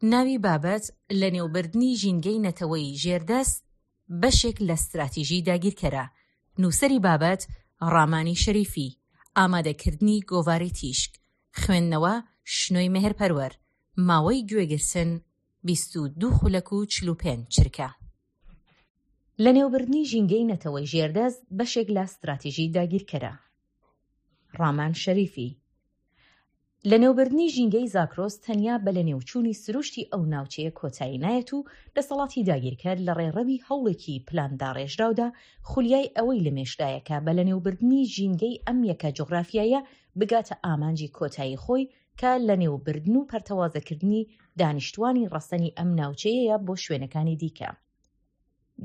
ناوی بابەت، لەنێوبردنی ژینگەی نەتەوەی ژێردەست بەشێک لە ستراتیژی داگیرکەرە. نووسەری بابەت، ڕامانی شەریفی. ئامادەکردنی گۆڤاری تیشک. خوێندنەوە، شنۆی مێهرپەروەر. ماوەی گوێگرتن، 22 خولەک و 45 چرکە. لەنێوبردنی ژینگەی نەتەوەی ژێردەست بەشێک لە ستراتیژی داگیرکەرە. ڕامان شەریفی. لەنێوبردنی ژینگەی زاگرۆس تەنیا بە لەنێوچوونی سروشتی ئەو ناوچەیە کۆتایی نایەت و دەسەڵاتی داگیرکەر لە ڕێڕەوی هەوڵێکی پلانداڕێژراودا خولیای ئەوەی لە مێشکدایە کە بە لەنێوبردنی ژینگەی ئەم یەکە جوغرافیایە بگاتە ئامانجی کۆتایی خۆی کە لەنێوبردن و پەرتەوازەکردنی دانیشتوانی ڕەسەنی ئەم ناوچەیەیە بۆ شوێنەکانی دیکە.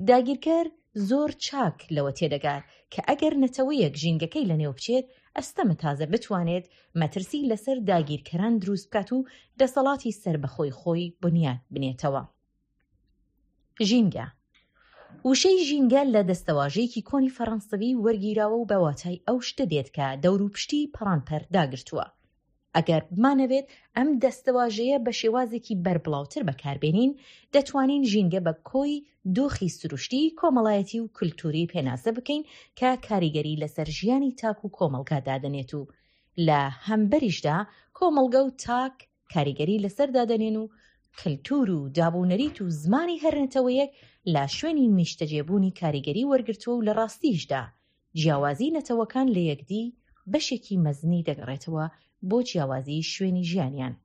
داگیرکەر زۆر چاک لەوە تێدەگات کە ئەگەر نەتەوەیەک ژینگەکەی لەنێو بچێت، ئەستەمە تازە بتوانێت مەترسی لەسەر داگیرکەران دروست بکات و دەسەڵاتی سەربەخۆی خۆی بنیات بنێتەوە. ژینگە وشەی ژینگە لە دەستەواژەیەکی کۆنی فەڕەنسەوی وەرگیراوە و بە واتای ئەو شتە دێت کە دەوروپشتی پەڕانپەر داگرتووە. ئەگەر بمانەوێت ئەم دەستەواژەیە بە شێوازێکی بەربڵاوتر بەکاربێنین، دەتوانین ژینگە بە کۆی دۆخی سروشتی، کۆمەڵایەتی و کولتووری پێناسە بکەین کە کاریگەری لەسەر ژیانی تاک و کۆمەڵگا دادەنێت و لە هەمبەریشدا کۆمەڵگە و تاک کاریگەری لەسەر دادەنێن و کلتور و دابونەریت و زمانی هەر نەتەوەیەک لە شوێنی نیشتەجێبوونی کاریگەری وەرگرتووە و لە ڕاستیشدا جیاوازی نەتەوەکان لە یەکدی بەشێکی مەزنی دەگەڕێتەوە بۆ جیاوازی شوێنی ژیانیان.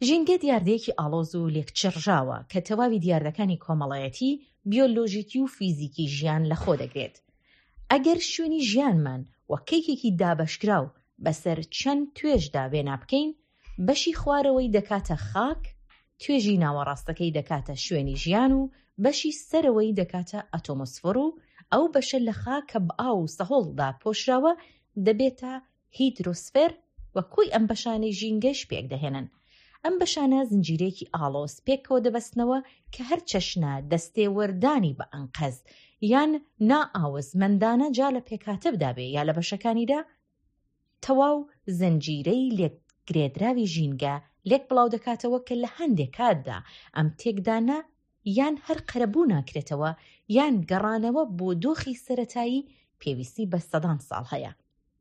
ژینگە دیاردەیەکی ئاڵۆز و لێکچڕژاوە کە تەواوی دیاردەکانی کۆمەڵایەتی، بیۆلۆژیکی و فیزیکی ژیان لەخۆ دەگرێت. ئەگەر شوێنی ژیانمان وەک کەیکێکی دابەشکراو بەسەر چەند توێژدا وێنا بکەین، بەشی خوارەوەی دەکاتە خاک، توێژی ناوەڕاستەکەی دەکاتە شوێنی ژیان و بەشی سەرەوەی دەکاتە ئەتۆمۆسفۆر و ئەو بەشە لە خاک کە بە ئاو و سەهۆڵ داپۆشراوە دەبێتە هیدرۆسفێر و کۆی ئەم بەشانەی ژینگەش پێکدەهێنن. ئەم بەشانە زنجیرەیەکی ئاڵۆز پێکەوە دەبەستنەوە کە هەر چەشنە دەستێوەردانی بە ئەنقەست یان نائاوەزمەندانە جا لە پێکهاتەدا بێ یا لە بەشەکانیدا تەواو زنجیرەی لێکگرێدراوی ژینگە لێک بڵاو دەکاتەوە کە لە هەندێ کاتدا ئەم تێکدانە یان هەر قەرەبوو ناکرێتەوە یان گەڕانەوە بۆ دۆخی سەرەتایی پێویستی بە سەدان ساڵ هەیە.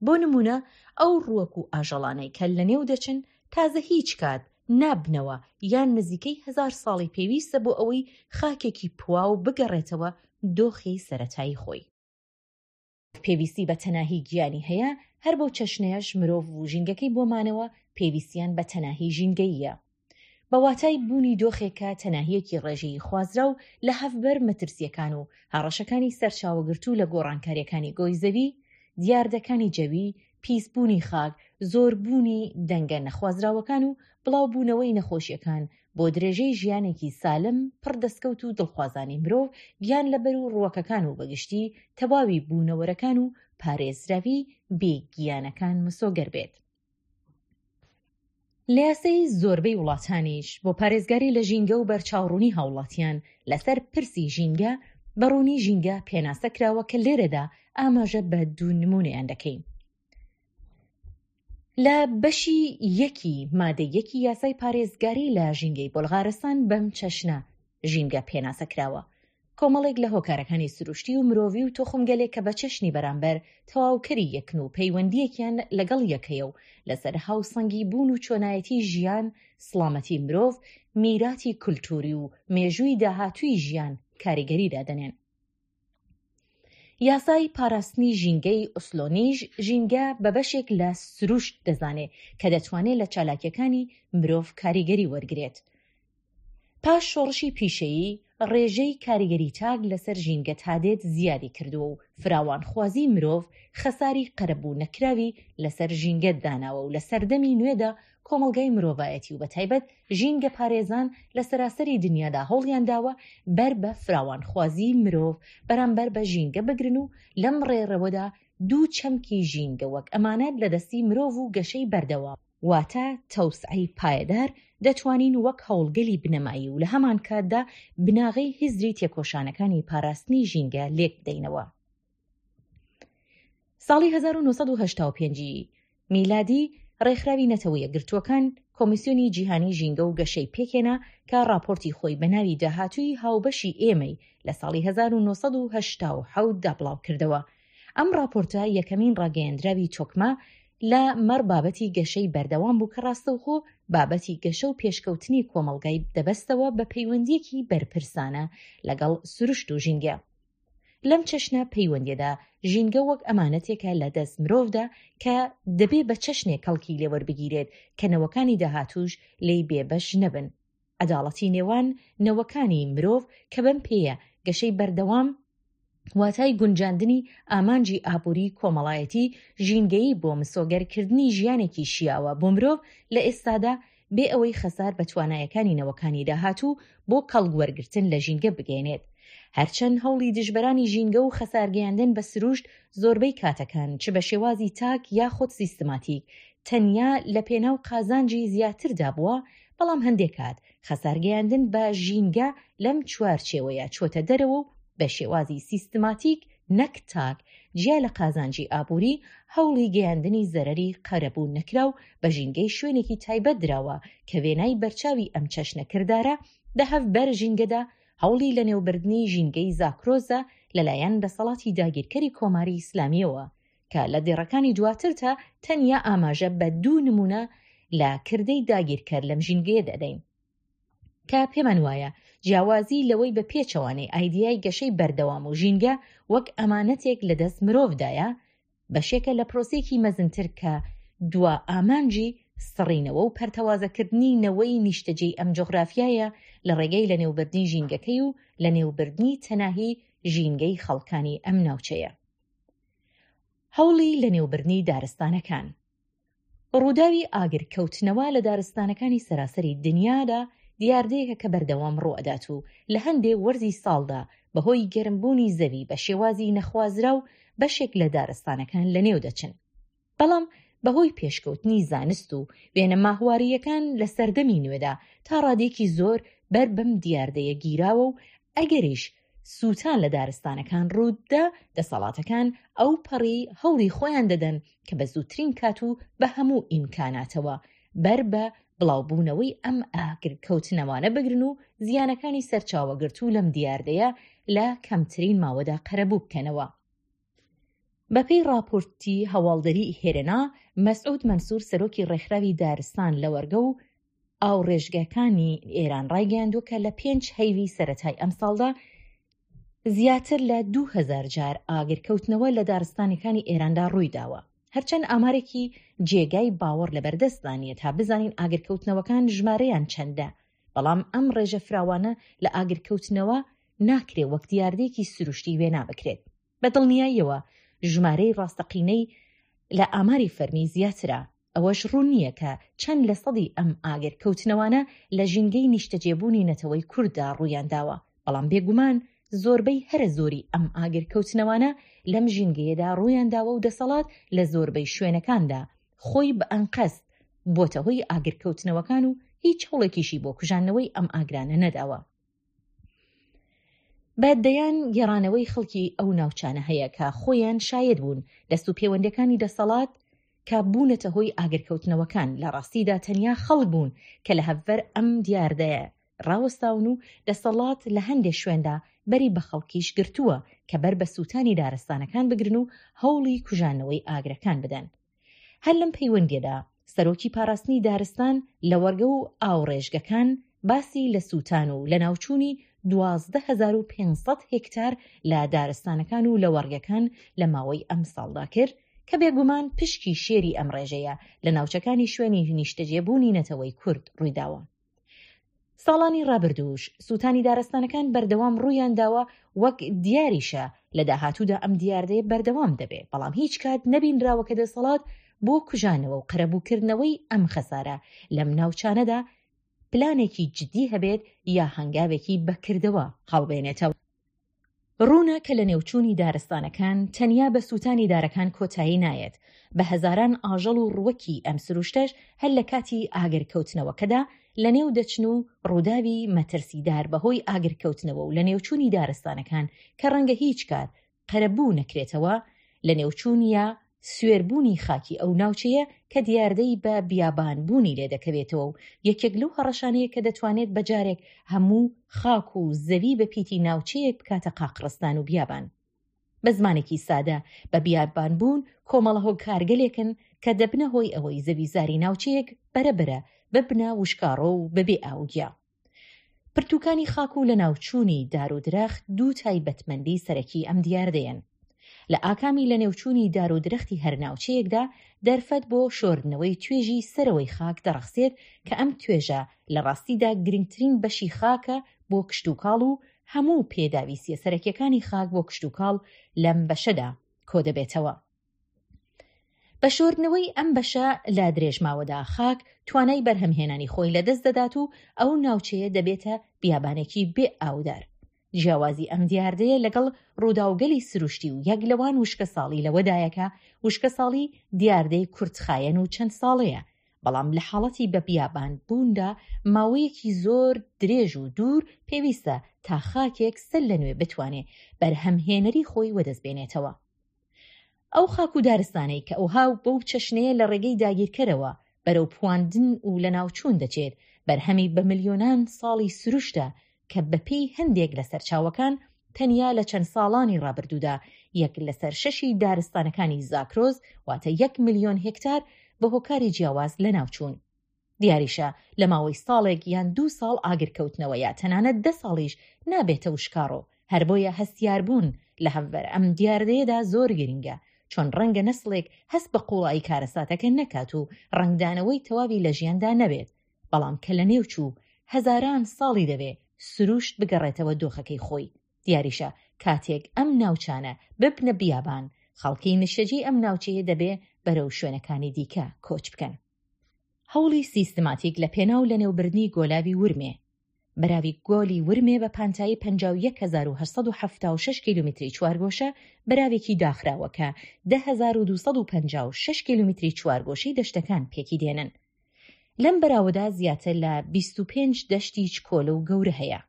بۆ نموونە ئەو ڕووەک و ئاژەڵانەی کە لەنێو دەچن تازە هیچ کات نابنەوە یان نزیکەی هەزار ساڵی پێویستە بۆ ئەوەی خاکێکی پواو بگەڕێتەوە دۆخی سەرەتایی خۆی. پێویستی بە تەناهی گیانی هەیە، هەر بەو چەشنەیش مرۆڤ و ژینگەکەی بۆ مانەوە پێویستیان بە تەناهی ژینگەییە. بە واتای بوونی دۆخێک کە تەناهییەکی ڕێژەیی خوازراو لە هەڤبەر مەترسییەکان و هەڕەشەکانی سەرچاوەگرتوو لە گۆڕانکارییەکانی گۆی زەوی، دیاردەکانی جەوی، پیسبوونی خاک، زۆربوونی دەنگە نەخوازراوەکان و بڵاوبوونەوەی نەخۆشییەکان بۆ درێژەی ژیانێکی سالم، پڕ دەسکەوت و دڵخوازانەی مرۆڤ، گیانلەبەر و ڕووەکەکان و بەگشتی تەواوی بوونەوەرەکان و پارێزراوی بێ گیانەکان مسۆگەر بێت. لە یاسای زۆربەی وڵاتانیش بۆ پارێزگاری لە ژینگە و بەرچاوڕوونی هاوڵاتیان لەسەر پرسی ژینگە، بە ڕوونی ژینگە پێناسە کراوە کە لێرەدا ئاماژە بە دوو نموونەیان دەکەین. لە بەشی یەکی مادەی یەکی یاسای پارێزگاری لە ژینگەی بۆلغارستان بەم چەشنە ژینگە پێناسە کراوە، کۆمەڵێک لە هۆکارەکانی سروشتی و مرۆڤی و توخمگەلێک کە بە چەشنی بەرامبەر تەواوکەری یەکن و پەیوەندییەکیان لەگەڵ یەک هەیە و لەسەر هاوسەنگی بوون و چۆنایەتی ژیان، سڵامەتی مرۆڤ، میراتی کولتووری و مێژووی داهاتووی ژیان کاریگەری دادەنێن. یاسای پاراستنی ژینگەی ئۆسلۆنیش ژینگە بە بەشێک لە سروشت دەزانێ کە دەتوانێ لە چالاکییەکانی مرۆڤ کاریگەری وەرگرێت. پاش شۆڕشی پیشەیی، ڕێژەی کاریگەری تاک لەسەر ژینگە تادێت زیادی کردووە و فراوانخوازی مرۆڤ خەساری قەرەبوو نەکراوی لەسەر ژینگە داناوە و لە سەردەمی نوێدا کۆمەڵگای مرۆڤایەتی و بەتایبەت ژینگەپارێزان لە سەراسەری دنیادا هەوڵیان داوە بەر بە فراوانخوازی مرۆڤ بەرامبەر بە ژینگە بگرن و لەم ڕێڕەوەدا دوو چەمکی ژینگە وەک ئەمانەت لە دەستی مرۆڤ و گەشەی بەردەوام واتە تەوسعەی پایەدار دەتوانین وەک هەوڵگەلی بنەمایی و لە هەمانکاتدا بناغەی هزری تێکۆشانەکانی پاراستنی ژینگە لێک بدەینەوە. ساڵی 1985 ی میلادی ڕێکخراوی نەتەوە یەکگرتووەکان کۆمیسیۆنی جیهانی ژینگە و گەشەی پێکهێنا کە ڕاپۆرتی خۆی بە ناوی داهاتووی هاوبەشی ئێمەی لە ساڵی 1987 دا بڵاوکردەوە. ئەم ڕاپۆرتە یەکەمین ڕاگەیەندراوی تۆکمە لە مەڕ بابەتی گەشەی بەردەوام بوو کە ڕاستەوخۆ بابەتی گەشە و پێشکەوتنی کۆمەڵگای دەبەستەوە بە پەیوەندییەکی بەرپرسانە لەگەڵ سروشت و ژینگە. لەم چەشنە پەیوەندیەدا ژینگە وەک ئەمانەتێکە لە دەست مرۆڤدا کە دەبێ بە چەشنێک کەڵکی لێ وەربگیرێت کە نەوەکانی داهاتووش لێی بێ بەش نەبن. عەداڵەتی نێوان نەوەکانی مرۆڤ کە بەم پێیە گەشەی بەردەوام واتای گونجاندنی ئامانجی ئابووری کۆمەڵایەتی ژینگەیی بۆ مسۆگەر کردنی ژیانێکی شیاوە بۆ مرۆڤ لە ئێستادا بێ ئەوەی خەسار بە توانایەکانی نەوەکانی داهاتوو بۆ کەڵک وەرگرتن لە ژینگە بگەیەنێت. هەرچەند هەوڵی دژبەرانی ژینگە و خەسارگەیاندن بە سروشت زۆربەی کاتەکان چ بە شێوازی تاک یاخود سیستماتیک تەنیا لە پێناو قازانجی زیاتردا بووە، بەڵام هەندێ کات خەسارگەیاندن بە ژینگە لەم چوارچێوەیە چۆتە دەرەوە و بە شێوازی سیستماتیک نەک تاک، جیا لە قازانجی ئابووری، هەوڵی گەیاندنی زەرەری قەرەبوو نەکراو بە ژینگەی شوێنێکی تایبەت دراوە کە وێنای بەرچاوی ئەم چەشنە کردارە دە هەڤبەر ژینگەدا هەوڵی لەنێوبردنی ژینگەی زاکرۆزە لەلایەن دەسەڵاتی داگیرکەری کۆماری ئیسلامییەوە کە لە دێڕەکانی دواترتا تەنیا ئاماژە بە دوو نموونە لە کردەی داگیرکەر لەم ژینگەیە دەدەین. کە پێمان وایە جیاوازی لەوەی بە پێچەوانەی ئایدیای گەشەی بەردەوام و ژینگە وەک ئەمانەتێک لە دەست مرۆڤدایە، بەشێکە لە پرۆسەیەکی مەزنتر کە دوا ئامانجی سڕینەوە و پەرتەوازەکردنی نەوەی نیشتەجێی ئەم جوغرافیایە لە ڕێگەی لەنێوبردنی ژینگەکەی و لەنێوبردنی تەناهی ژینگەی خەڵکانی ئەم ناوچەیە. هەوڵی لەنێوبردنی دارستانەکان. ڕووداوی ئاگرکەوتنەوە لە دارستانەکانی سەراسەری دنیادا دیاردەیەکە کە بەردەوام ڕووئەدات و لە هەندێ وەرزی ساڵدا بەهۆی گەرمبوونی زەوی بە شێوازی نەخوازراو بەشێک لە دارستانەکان لەنێو دەچن. بەڵام بەهۆی پێشکەوتنی زانست و وێنە ماهوارییەکان لە سەردەمی نوێدا تا ڕادەیەکی زۆر بەر بەم دیاردەیە گیراوە و ئەگەریش سووتان لە دارستانەکان ڕووتدا، دەسەڵاتەکان ئەوپەڕی هەوڵی خۆیان دەدەن کە بە زووترین کات و بە هەموو ئیمکاناتەوە بەر بە بڵاوبوونەوەی ئەم ئاگرکەوتنەوانە بگرن و زیانەکانی سەرچاوەگرتوو لەم دیاردەیە لە کەمترین ماوەدا قەرەبوو بکەنەوە. بەپێی ڕاپۆرتی هەواڵدەریی هێرنا، مەسعود مەنسوور سەرۆکی ڕێکخراوی دارستان لەوەرگە و ئاوڕێژگەکانی ئێران ڕایگەیاندووە کە لە پێنج هەیڤی سەرەتای ئەمساڵدا زیاتر لە 2000 جار ئاگرکەوتنەوە لە دارستانەکانی ئێراندا ڕوویداوە. هەرچەند ئامارێکی جێگای باوەڕ لەبەردەستدا نییە تا بزانین ئاگرکەوتنەوەکان ژمارەیان چەندە، بەڵام ئەم ڕێژە فراوانە لە ئاگرکەوتنەوە ناکرێ وەک دیاردەیەکی سروشتی وێنا بکرێت. بە دڵنیاییەوە ژمارەی ڕاستەقینەی لە ئاماری فەرمی زیاترە، ئەوەش ڕوون نییە کە چەند لە سەدی ئەم ئاگر کەوتنەوانە لە ژینگەی نیشتەجێبوونی نەتەوەی کورددا ڕوویان داوە، بەڵام بێگومان زۆربەی هەرە زۆری ئەم ئاگر کەوتنەوانە لەم ژینگەیەدا ڕوویان داوە و دەسەڵات لە زۆربەی شوێنەکاندا خۆی بە ئەنقەست بۆتە هۆی ئاگر کەوتنەوەکان و هیچ هەوڵێکیشی بۆ کوژاندنەوەی ئەم ئاگرانە نەداوە. بە دەیان گێڕانەوەی خەڵکی ئەو ناوچانە هەیە کە خۆیان شایەد بوون دەست و پێوەندەکانی دەسەڵات کە بوونەتە هۆی ئاگرکەوتنەوەکان لە ڕاستیدا تەنیا خەڵک بوون کە لە هەڤەر ئەم دیاردەیە ڕاوەستاون و دەسەڵات لە هەندێ شوێندا بەری بە خەڵکیش گرتووە کە بەر بە سووتانی دارستانەکان بگرن و هەوڵی کوژانەوەی ئاگرەکان بدەن. هەر لەم پەیوەندیەدا سەرۆکی پاراستنی دارستان، لەوەڕگە و ئاوڕێژگەکان باسی لە سووتان و لەناوچوونی 12500 هێکتار لە دارستانەکان و لەوەڕگەکان لە ماوەی ئەمساڵدا کرد کە بێگومان پشکی شێری ئەم ڕێژەیە لە ناوچەکانی شوێنی نیشتەجێبوونی نەتەوەی کورد ڕوویداوە. ساڵانی ڕابردووش سووتانی دارستانەکان بەردەوام ڕوویان داوە وەک دیاریشە لە داهاتوودا ئەم دیاردەیە بەردەوام دەبێ بەڵام هیچ کات نەبینراوە کە دەسەڵات بۆ کوژانەوە و قەرەبووکردنەوەی ئەم خەسارە لەم ناوچانەدا پلانێکی جدی هەبێت یا هەنگاوێکی بەکردەوە هەڵبێنێتەوە. ڕوونە کە لەنێوچوونی دارستانەکان تەنیا بە سووتانی دارەکان کۆتایی نایەت، بە هەزاران ئاژەڵ و ڕووەکی ئەم سروشتەش هەر لە کاتی ئاگرکەوتنەوەکەدا لەنێو دەچن و ڕووداوی مەترسیدار بەهۆی ئاگرکەوتنەوە و لەنێوچوونی دارستانەکان کە ڕەنگە هیچ کات قەرەبوو نەکرێتەوە، لەنێوچوون یا. سوێربوونی خاکی ئەو ناوچەیە کە دیاردەی بە بیابان بوونی لێ دەکەوێتەوە و یەکێک لەو هەڕەشانەیە کە دەتوانێت بە جارێک هەموو خاک و زەوی بە پیتی ناوچەیەک بکاتە قاقڕستان و بیابان. بە زمانێکی سادە بە بیابان بوون کۆمەڵە هۆکارگەلێکن کە دەبنە هۆی ئەوەی زەویزاری ناوچەیەک بەرە بەرە ببنە وشکاڕۆ و بەبێ ئاو و گیا. پرتووکانی خاک و لەناوچوونی دار و درەخت دوو تایبەتمەندی سەرەکی ئەم دیاردەیەن. لە ئاکامی لەنێوچوونی دار و درەختی هەر ناوچەیەکدا دەرفەت بۆ شۆردنەوەی توێژی سەرەوەی خاک دەڕەخسێت کە ئەم توێژە لە ڕاستیدا گرنگترین بەشی خاکە بۆ کشتوکاڵ و هەموو پێداویستیە سەرەکیەکانی خاک بۆ کشتوکاڵ لەم بەشەدا کۆدەبێتەوە. بە شۆردنەوەی ئەم بەشە لە درێژماوەدا خاک توانای بەرهەمهێنانی خۆی لەدەست دەدات و ئەو ناوچەیە دەبێتە بیابانێکی بێ ئاودار. جیاوازی ئەم دیاردەیە لەگەڵ ڕووداوگەلی سروشتی و یەک لەوان وشکەساڵی لەوەدایە کە وشکەساڵی دیاردەی کورتخایەن و چەند ساڵەیە بەڵام لە حاڵەتی بە بیابان بووندا ماوەیەکی زۆر درێژ و دوور پێویستە تا خاکێک سەر لە نوێ بتوانێ بەرهەمهێنەری خۆی وەدەست بێنێتەوە. ئەو خاک و دارستانەی کە ئەوها و بەو چەشنەیە لە ڕێگەی داگیرکەرەوە بەرەو پواندن و لەناوچوون دەچێت، بەرهەمی بە ملیۆنان ساڵی سروشتە کە بەپێی هەندێک لە سەرچاوەکان تەنیا لە چەند ساڵانی ڕابردوودا یەک لەسەر شەشی دارستانەکانی زاکرۆس واتە یەک ملیۆن هێکتار بە هۆکاری جیاواز لەناوچوون. دیاریشە لە ماوەی ساڵێک یان دوو ساڵ ئاگرکەوتنەوە یا تەنانەت دە ساڵیش نابێتە وشکاڕۆ، هەر بۆیە هەستیاربوون لە هەمبەر ئەم دیاردەیەدا زۆر گرنگە، چۆن ڕەنگە نەسڵێک هەست بە قووڵایی کارەساتەکە نەکات و ڕەنگدانەوەی تەواوی لە ژیاندا نەبێت، بەڵام کە لەنێو چوو هەزاران ساڵی دەوێ سروشت بگەڕێتەوە دۆخەکەی خۆی. دیاریشە کاتێک ئەم ناوچانە ببنە بیابان، خەڵکی نیشتەجێی ئەم ناوچەیە دەبێ بەرەو شوێنەکانی دیکە کۆچ بکەن. هەوڵی سیستماتیک لە پێناو لەنێوبردنی گۆلاوی ورمێ. بەراوی گۆلی ورمێ بە پانتایی 51876 کیلومیتری چوارگۆشە بەراوێکی داخراوە کە 10256 کیلومیتری چوارگۆشەی دەشتەکان پێکی دێنن. لەم بەراوەدا زیاتر لە 25 دەشتی چکۆلە و گەورە هەیە.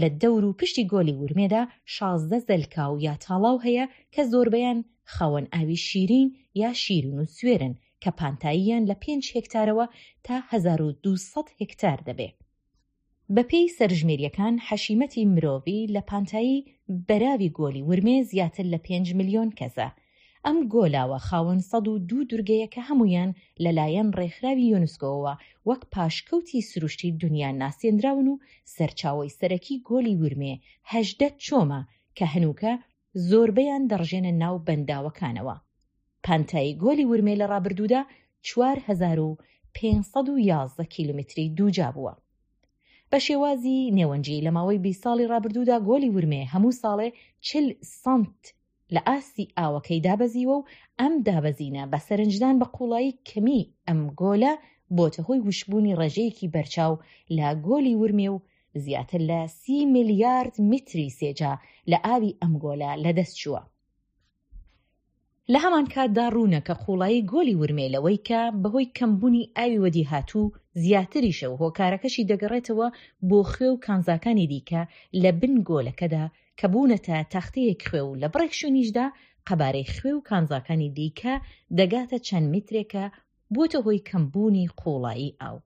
لە دەور و پشتی گۆلی ورمێدا 16 زەلکاو یا تاڵاو هەیە کە زۆربەیان خاوەن ئاوی شیرین یا شیرین و سوێرن کە پانتاییان لە پێنج هێکتارەوە تا 1200 هێکتار دەبێ. بەپێی سەرژمێرییەکان حەشیمەتی مرۆڤی لە پانتایی بەراوی گۆلی ورمێ زیاتر لە پێنج ملیۆن کەسە. ئەم گۆلاوە خاوەن 102 دورگەیە کە هەموویان لە لایەن ڕێکخراوی یۆنسکۆوە وەک پاشکەوتی سروشتی دونیا ناسێندراون و سەرچاوەی سەرەکی گۆلی ورمێ 18 چۆمە کە هەنووکە زۆربەیان دەڕژێنە ناو بەنداوەکانەوە. پانتایی گۆلی ورمێ لە ڕابردوودا 4511 کیلومتری دووجا بووە. بە شێوازی نێوەنجی لە ماوەی 20 ساڵی ڕابردوودا گۆلی ورمێ هەموو ساڵێ 40 سانت لە ئاستی ئاوەکەی دابەزیوە و ئەم دابەزینە بە سەرنجدان بە قووڵایی کەمی ئەم گۆلە بۆتە هۆی وشکبوونی ڕێژەیەکی بەرچاو لە گۆلی ورمێ و زیاتر لە سی میلیارد میتری سێجا لە ئاوی ئەم گۆلە لەدەست چووە. لە هەمان کاتدا ڕوونە کە قووڵایی گۆلی ورمێ لەوەی کە بەهۆی کەمبوونی ئاوی وەدیهاتوو زیاتریشە و هۆکارەکەشی دەگەڕێتەوە بۆ خوێ و کانزاکانی دیکە لە بن گۆلەکەدا کە بوونەتە تەختەیەک خوێ و لە بڕێک شوێنیشدا قەبارەی خوێ و کانزاکانی دیکە دەگاتە چەند میترێک کە بووەتە هۆی کەمبوونی قووڵایی ئاو.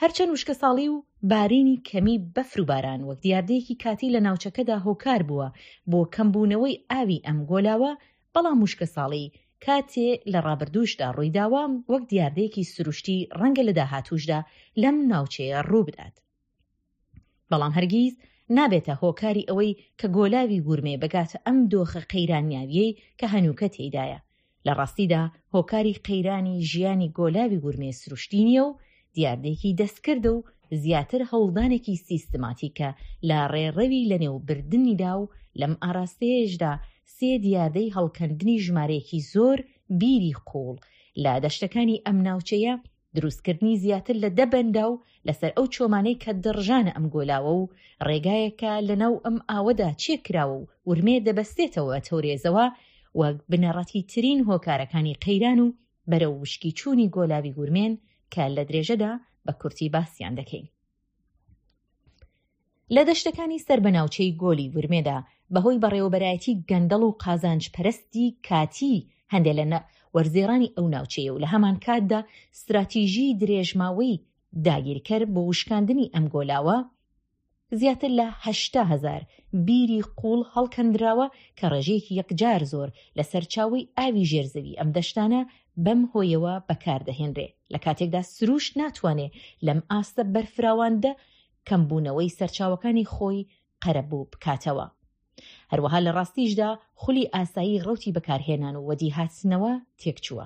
هەرچەند وشکەساڵی و بارینی کەمی بەفر و باران وەک دیاردەیەکی کاتی لە ناوچەکەدا هۆکار بووە بۆ کەمبوونەوەی ئاوی ئەم گۆلاوە، بەڵام وشکەساڵی کاتێ لە ڕابردووشدا ڕوویداوە وەک دیاردەیەکی سروشتی ڕەنگە لە داهاتووشدا لەم ناوچەیە ڕووبدات. بەڵام هەرگیز نابێتە هۆکاری ئەوەی کە گۆلاوی ورمێ بگاتە ئەم دۆخە قەیرانیاویەی کە هەنووکە تێیدایە. لە ڕاستیدا هۆکاری قەیرانی ژیانی گۆلاوی ورمێ سروشتی نییە و دیاردەیەکی دەستکردە و زیاتر هەوڵدانێکی سیستماتیکە لە ڕێڕەوی لەنێوبردنیدا و لەم ئاراستەیەشدا سێ دیاردەی هەڵکەندنی ژمارەیەکی زۆر بیری قووڵ لە دەشتەکانی ئەم ناوچەیە دروستکردنی زیاتر لە دە بەنداو لەسەر ئەو چۆمانەی کە دەڕژانە ئەم گۆلاوە و ڕێگایەکە لەناو ئەم ئاوەدا چێ کراوە و ورمێ دەبەستێتەوە بە تەورێزەوە وەک بنەڕەتی ترین هۆکارەکانی قەیران و بەرەو وشکی چوونی گۆلاوی ورمێن کە لە درێژەدا بە کورتی باسیان دەکەین. لە دەشتەکانی سەر بە ناوچەی گۆلی ورمێدا بەهۆی بەڕێوەبەرایەتی گەندەڵ و قازانج پەرستی کاتیی هەندێ لە وەرزێڕانی ئەو ناوچەیە و لە هەمانکاتدا ستراتیژیی درێژماوەی داگیرکەر بۆ وشکاندنی ئەم گۆلاوە، زیاتر لە 80 هەزار بیری قووڵ هەڵکەندراوە کە ڕێژەیەکی یەکجار زۆر لە سەرچاوەی ئاوی ژێر زەوی ئەم دەشتانە بەم هۆیەوە بەکار دەهێنرێ لە کاتێکدا سرووشت ناتوانێ لەم ئاستە بەرفراواندە کەمبوونەوەی سەرچاوەکانی خۆی قەرەبوو بکاتەوە. هەروەها لە ڕاستیشدا خولی ئاسایی ڕەوتی بەکارهێنان و وەدیهاتنەوە تێکچووە.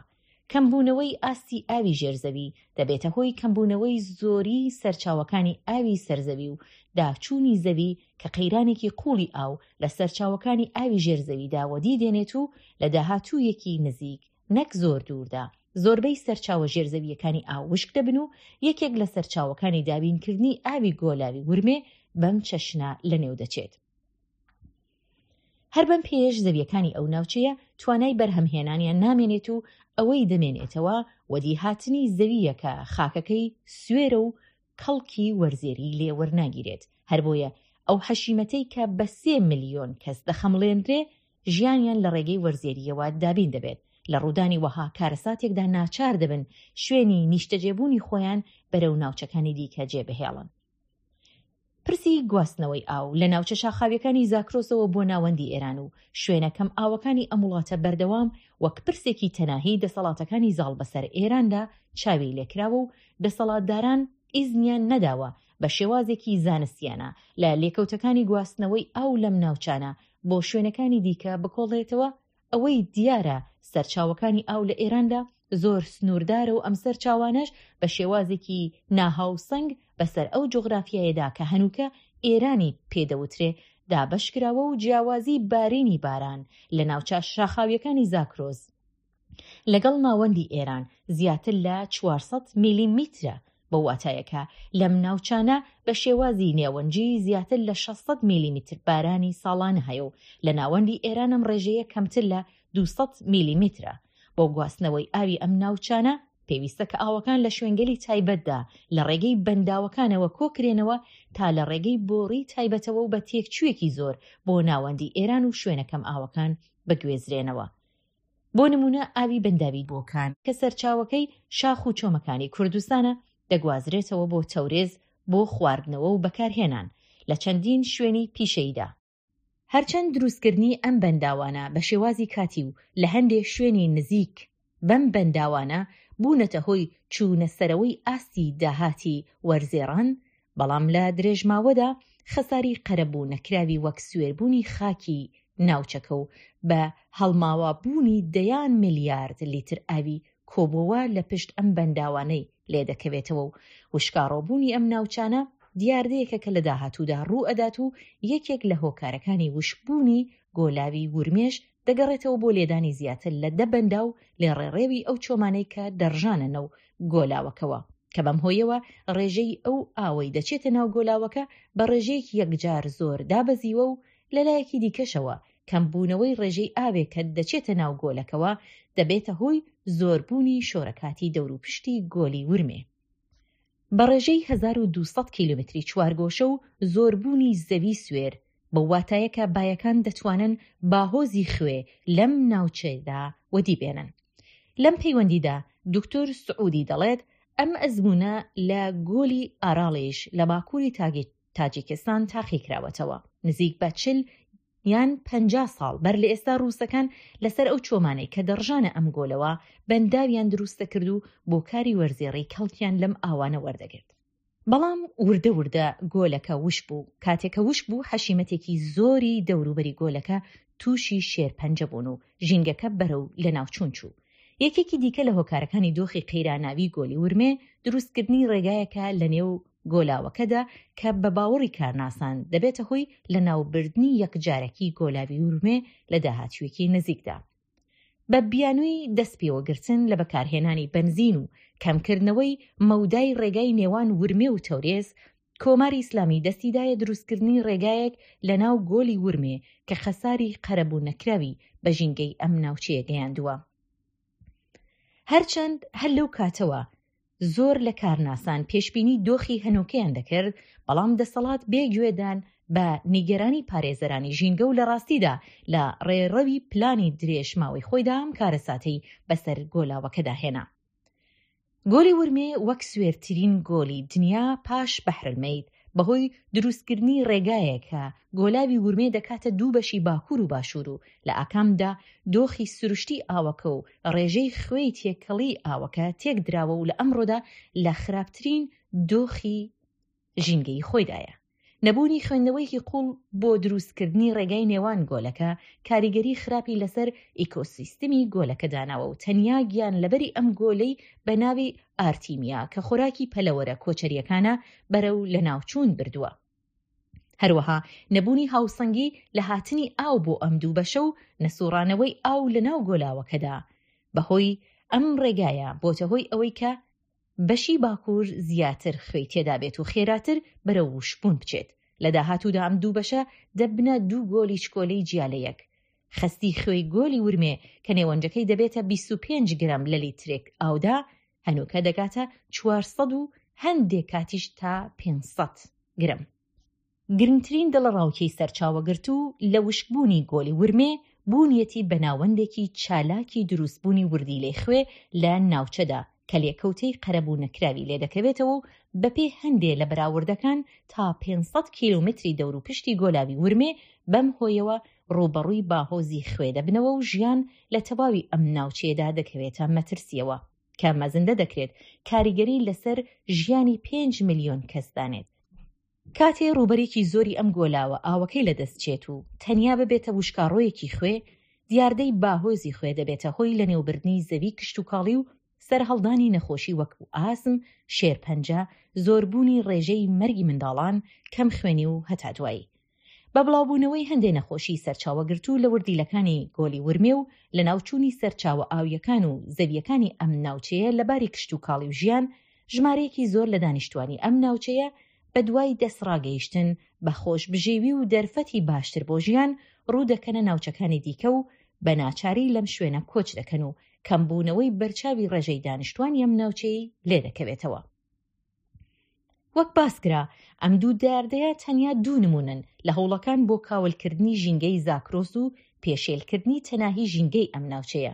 کەمبوونەوەی ئاستی ئاوی ژێر زەوی دەبێتە هۆی کەمبوونەوەی زۆری سەرچاوەکانی ئاوی سەر زەوی و داچوونی زەوی کە قەیرانێکی قووڵی ئاو لە سەرچاوەکانی ئاوی ژێر زەویدا وەدی دێنێت و لە داهاتوویەکی نزیک نەک زۆر دووردا زۆربەی سەرچاوە ژێرزەوییەکانی ئاو وشک دەبن و یەکێک لە سەرچاوەکانی دابینکردنی ئاوی گۆلاوی ورمێ بەم چەشنە لەنێو دەچێت. هەر بەم پێیەش زەویەکانی ئەو ناوچەیە توانای بەرهەمهێنانیان نامێنێت و ئەوەی دەمێنێتەوە وەدیهاتنی زەوییە کە خاکەکەی سوێرە و کەڵکی وەرزێری لێ وەرناگیرێت، هەربۆیە ئەو حەشیمەتەی کە بە 3 ملیۆن کەس دەخەمڵێنرێ ژیانیان لە ڕێگەی وەرزێرییەوە دابین دەبێت، لە ڕوودانی وەها کارەساتێکدا ناچار دەبن شوێنی نیشتەجێبوونی خۆیان بەرەو ناوچەکانی دیکە جێبهێڵن. پرسی گواستنەوەی ئاو لە ناوچە شاخاویەکانی زاکرۆسەوە بۆ ناوەندی ئێران و شوێنە کەم ئاوەکانی ئەم وڵاتە بەردەوام وەک پرسێکی تەناهی دەسەڵاتەکانی زاڵ بەسەر ئێراندا چاوی لێکراوە و دەسەڵاتداران ئیزنیان نەداوە بە شێوازێکی زانستیانە لە لێکەوتەکانی گواستنەوەی ئاو لەم ناوچانە بۆ شوێنەکانی دیکە بکۆڵێتەوە. ئەوەی دیارە سەرچاوەکانی ئاو لە ئێراندا زۆر سنووردارە و ئەم سەرچاوانەش بە شێوازێکی ناهاوسەنگ بەسەر ئەو جوغرافیایەدا کە هەنووکە ئێرانی پێ دەوترێ دابەش کراوە و جیاوازی بارینی باران لە ناوچە شاخاوییەکانی زاکرۆس لەگەڵ ناوەندی ئێران زیاتر لە 400 میلیمیترە، بەو واتایە کە لەم ناوچانە بە شێوازی نێوەنجی زیاتر لە 600 میلیمیتر بارانی ساڵانە هەیە و لە ناوەندی ئێران ئەم ڕێژەیە کەمتر لە 200 میلیمیترە. بۆ گواستنەوەی ئاوی ئەم ناوچانە پێویستە کە ئاوەکان لە شوێنگەلی تایبەتدا لە ڕێگەی بەنداوەکانەوە کۆکرێنەوە تا لە ڕێگەی بۆڕی تایبەتەوە و بە تێکچوویەکی زۆر بۆ ناوەندی ئێران و شوێنە کەم ئاوەکان بگوێزرێنەوە. بۆ نموونە ئاوی بەنداوی بۆکان کە سەرچاوەکەی شاخ و چۆمەکانی کوردستانە دەگوازرێتەوە بۆ تەورێز بۆ خواردنەوە و بەکارهێنان لە چەندین شوێنی پیشەییدا. هەرچەند دروستکردنی ئەم بەنداوانە بە شێوازی کاتی و لە هەندێ شوێنی نزیک بەم بەنداوانە بوونەتە هۆی چوونە سەرەوەی ئاستی داهاتی وەرزێڕان، بەڵام لە درێژماوەدا خەساری قەرەبوو نەکراوی وەک سوێربوونی خاکی ناوچەکە و بە هەڵماوە بوونی دەیان میلیارد لیتر ئاوی کۆبۆوە لە پشت ئەم بەنداوانەی لێدەکەوێتەوە و وشکاڕۆبوونی ئەم ناوچانە دیاردەیەکە کە لە داهاتوودا ڕوو ئەدات و یەکێک لە هۆکارەکانی وشکبوونی گۆلاوی ورمێش دەگەڕێتەوە بۆ لێدانی زیاتر لە دە بەنداو لە ڕێڕێوی ئەو چۆمانەی کە دەڕژانە نەو گۆلاوەکەوە کە بەم هۆیەوە ڕێژەی ئەو ئاوەی دەچێتە ناو گۆلاوەکە بە ڕێژەیەکی یەکجار زۆر دابەزیوە و لەلایەکی دیکەشەوە کەمبوونەوەی ڕێژەی ئاوێک کە دەچێتە ناو گۆلەکەوە دەبێتە هۆی زۆربوونی شۆرەکاتی دەوروپشتی گۆلی ورمێ بە ڕێژەی 1200 کیلۆمەتری چوارگۆشە و زۆربوونی زەوی سوێر، بەو واتایە کە بایەکان دەتوانن باهۆزی خوێ لەم ناوچەیەدا وەدی بێنن. لەم پەیوەندیدا دوکتور سعودی دەڵێت، ئەم ئەزموونە لە گۆلی ئاراڵیش لە باکووری تاجیکستان تاقی کراوەتەوە. نزیک بە 40 یان 50 ساڵ بەر لە ئێستا ڕووسەکان لەسەر ئەو چۆمانەی کە دەڕژانە ئەم گۆلەوە بەنداویان دروست دەکرد و بۆ کاری وەرزێڕی کەڵکیان لەم ئاوانە وەردەگرت. بەڵام وردە وردە گۆلەکە وشک بوو، کاتێ کە وشک بوو حەشیمەتێکی زۆری دەوروبەری گۆلەکە تووشی شێرپەنجە بوون و ژینگەکە بەرەو لەناوچوون چوو. یەکێکی دیکە لە هۆکارەکانی دۆخی قەیراناوی گۆلی ورمێ، دروستکردنی ڕێگایەکە لەنێو گۆلاوەکەدا کە بە باوەڕی کارناسان دەبێتە هۆی لەناوبردنی یەکجارەکی گۆلاوی ورمێ لە داهاتوویەکی نزیکدا. بە بیانووی دەستپێوەگرتن لە بەکارهێنانی بەنزین و کەمکردنەوەی مەودای ڕێگای نێوان ورمێ و تەورێز، کۆماری ئیسلامی دەستی دایە دروستکردنی ڕێگایەک لە ناو گۆلی ورمێ کە خەساری قەرەبوو نەکراوی بە ژینگەی ئەم ناوچەیە گەیاندووە. هەرچەند هەر لەو کاتەوە زۆر لە کارناسان پێشبینی دۆخی هەنووکەیان دەکرد، بەڵام دەسەڵات بێ گوێدان بە نیگەرانی پارێزەرانی ژینگە و لە ڕاستیدا لە ڕێڕەوی پلانی درێژ ماوەی خۆیدا ئەم کارەساتەی بەسەر گۆلاوەکەدا هێنا. گۆلی ورمێ وەک سوێرترین گۆلی دنیا پاش بەحرالمەیت بەهۆی دروستکردنی ڕێگایەک کە گۆلاوی ورمێ دەکاتە دوو بەشی باکوور و باشوور و لە ئاکامدا دۆخی سروشتی ئاوەکە و ڕێژەی خوێی تێکەڵی ئاوەکە تێکدراوە و لە ئەمڕۆدا لە خراپترین دۆخی ژینگەیی خۆیدایە. نەبوونی خوێندنەوەیەکی قووڵ بۆ دروستکردنی ڕێگای نێوان گۆلەکە کاریگەری خراپی لەسەر ئیکۆسیستمی گۆلەکە داناوە و تەنیا گیانلەبەری ئەم گۆلەی بە ناوی ئارتیمیا کە خۆراکی پەلەوەرە کۆچەرییەکانە بەرەو لەناوچوون بردووە. هەروەها نەبوونی هاوسەنگی لە هاتنی ئاو بۆ ئەم دوو بەشە و نەسوڕانەوەی ئاو لەناو گۆلاوەکەدا بەهۆی ئەم ڕێگایە بۆتە هۆی ئەوەی کە بەشی باکوور زیاتر خوێی تێدابێت و خێراتر بەرەو وشکبوون بچێت. لە داهاتوودا ئەم دوو بەشە دەبنە دوو گۆلی چکۆلەی جیا لە یەک. خەستی خوێی گۆلی ورمێ کە نێوەنجەکەی دەبێتە 25 گرام لە لیترێک ئاودا، هەنووکە دەگاتە 400 و هەندێک کاتیش تا 500 گرم. گرنگترین دڵەڕاوکێی سەرچاوەگرتوو لە وشکبوونی گۆلی ورمێ، بوونیەتی بە ناوەندێکی چالاکی دروستبوونی وردیلەی خوێ لە ناوچەدا کە لێکەوتەی قەرەبوو نەکراوی لێدەکەوێتەوە و بەپێی هەندێ لە بەراوردەکان تا 500 کیلۆمەتری دەوروپشتی گۆلاوی ورمێ بەم هۆیەوە ڕووبەڕووی باهۆزی خوێ دەبنەوە و ژیان لە تەواوی ئەم ناوچەیەدا دەکەوێتە مەترسییەوە کە مەزندە دەکرێت کاریگەری لەسەر ژیانی پێنج ملیۆن کەس دانێت. کاتێ ڕووبەرێکی زۆری ئەم گۆلاوە ئاوەکەی لەدەست چێت و تەنیا ببێتە وشکاڕۆیەکی خوێ، دیاردەی باهۆزی خوێ دەبێتە هۆی لەنێوبردنی زەوی کشتوکاڵی و سەرهەڵدانی نەخۆشی وەکو ئاسم، شێرپەنجە، زۆربوونی ڕێژەی مەرگی منداڵان، کەمخوێنی و هەتا دوایی. بە بڵاوبوونەوەی هەندێ نەخۆشی سەرچاوەگرتوو لە وردیلەکانی گۆلی ورمێ و لەناوچوونی سەرچاوە ئاوییەکان و زەوییەکانی ئەم ناوچەیە لە باری کشتوکاڵی و ژیان، ژمارەیەکی زۆر لە دانیشتوانی ئەم ناوچەیە بەدوای دەستڕاگەیشتن بە خۆشبژێوی و دەرفەتی باشتر بۆ ژیان ڕوو دەکەنە ناوچەکانی دیکە و بە ناچاری لەم شوێنە کۆچ دەکەن و کەمبوونەوەی بەرچاوی ڕێژەی دانیشتوانی ئەم ناوچەیەی لێدەکەوێتەوە. وەک باسکرا ئەم دوو دیاردەیە تەنیا دوو نموونەن لە هەوڵەکان بۆ کاولکردنی ژینگەی زاکرۆس و پێشێلکردنی تەناهی ژینگەی ئەم ناوچەیە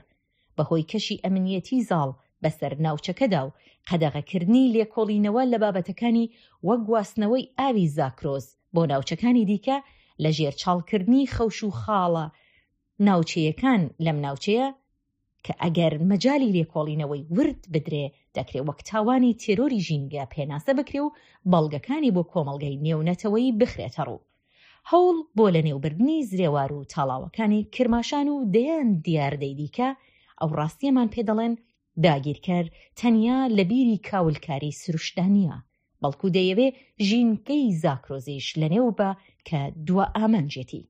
بەهۆی کەشی ئەمنیەتی زاڵ بەسەر ناوچەکەدا و قەدەغەکردنی لێکۆڵینەوە لە بابەتەکانی وەک گواستنەوەی ئاوی زاکرۆس بۆ ناوچەکانی دیکە لە ژێر چاڵکردنی خەوش و خاڵە ناوچەیەکان لەم ناوچەیە کە ئەگەر مەجالی لێکۆڵینەوەی ورد بدرێ دەکرێ وەک تاوانی تێرۆری ژینگە پێناسە بکرێ و بەڵگەکانی بۆ کۆمەڵگەی نێونەتەوەیی بخرێتە ڕوو. هەوڵ بۆ لەنێوبردنی زرێوار و تاڵاوەکانی کرماشان و دەیان دیاردەی دیکە ئەو ڕاستییەمان پێ دەڵێن داگیرکەر تەنیا لە بیری کاولکاری سروشتدا نییە، بەڵکوو دەیەوێ ژینگەی زاکرۆزیش لەنێو با کە دوا ئامانجیەتی.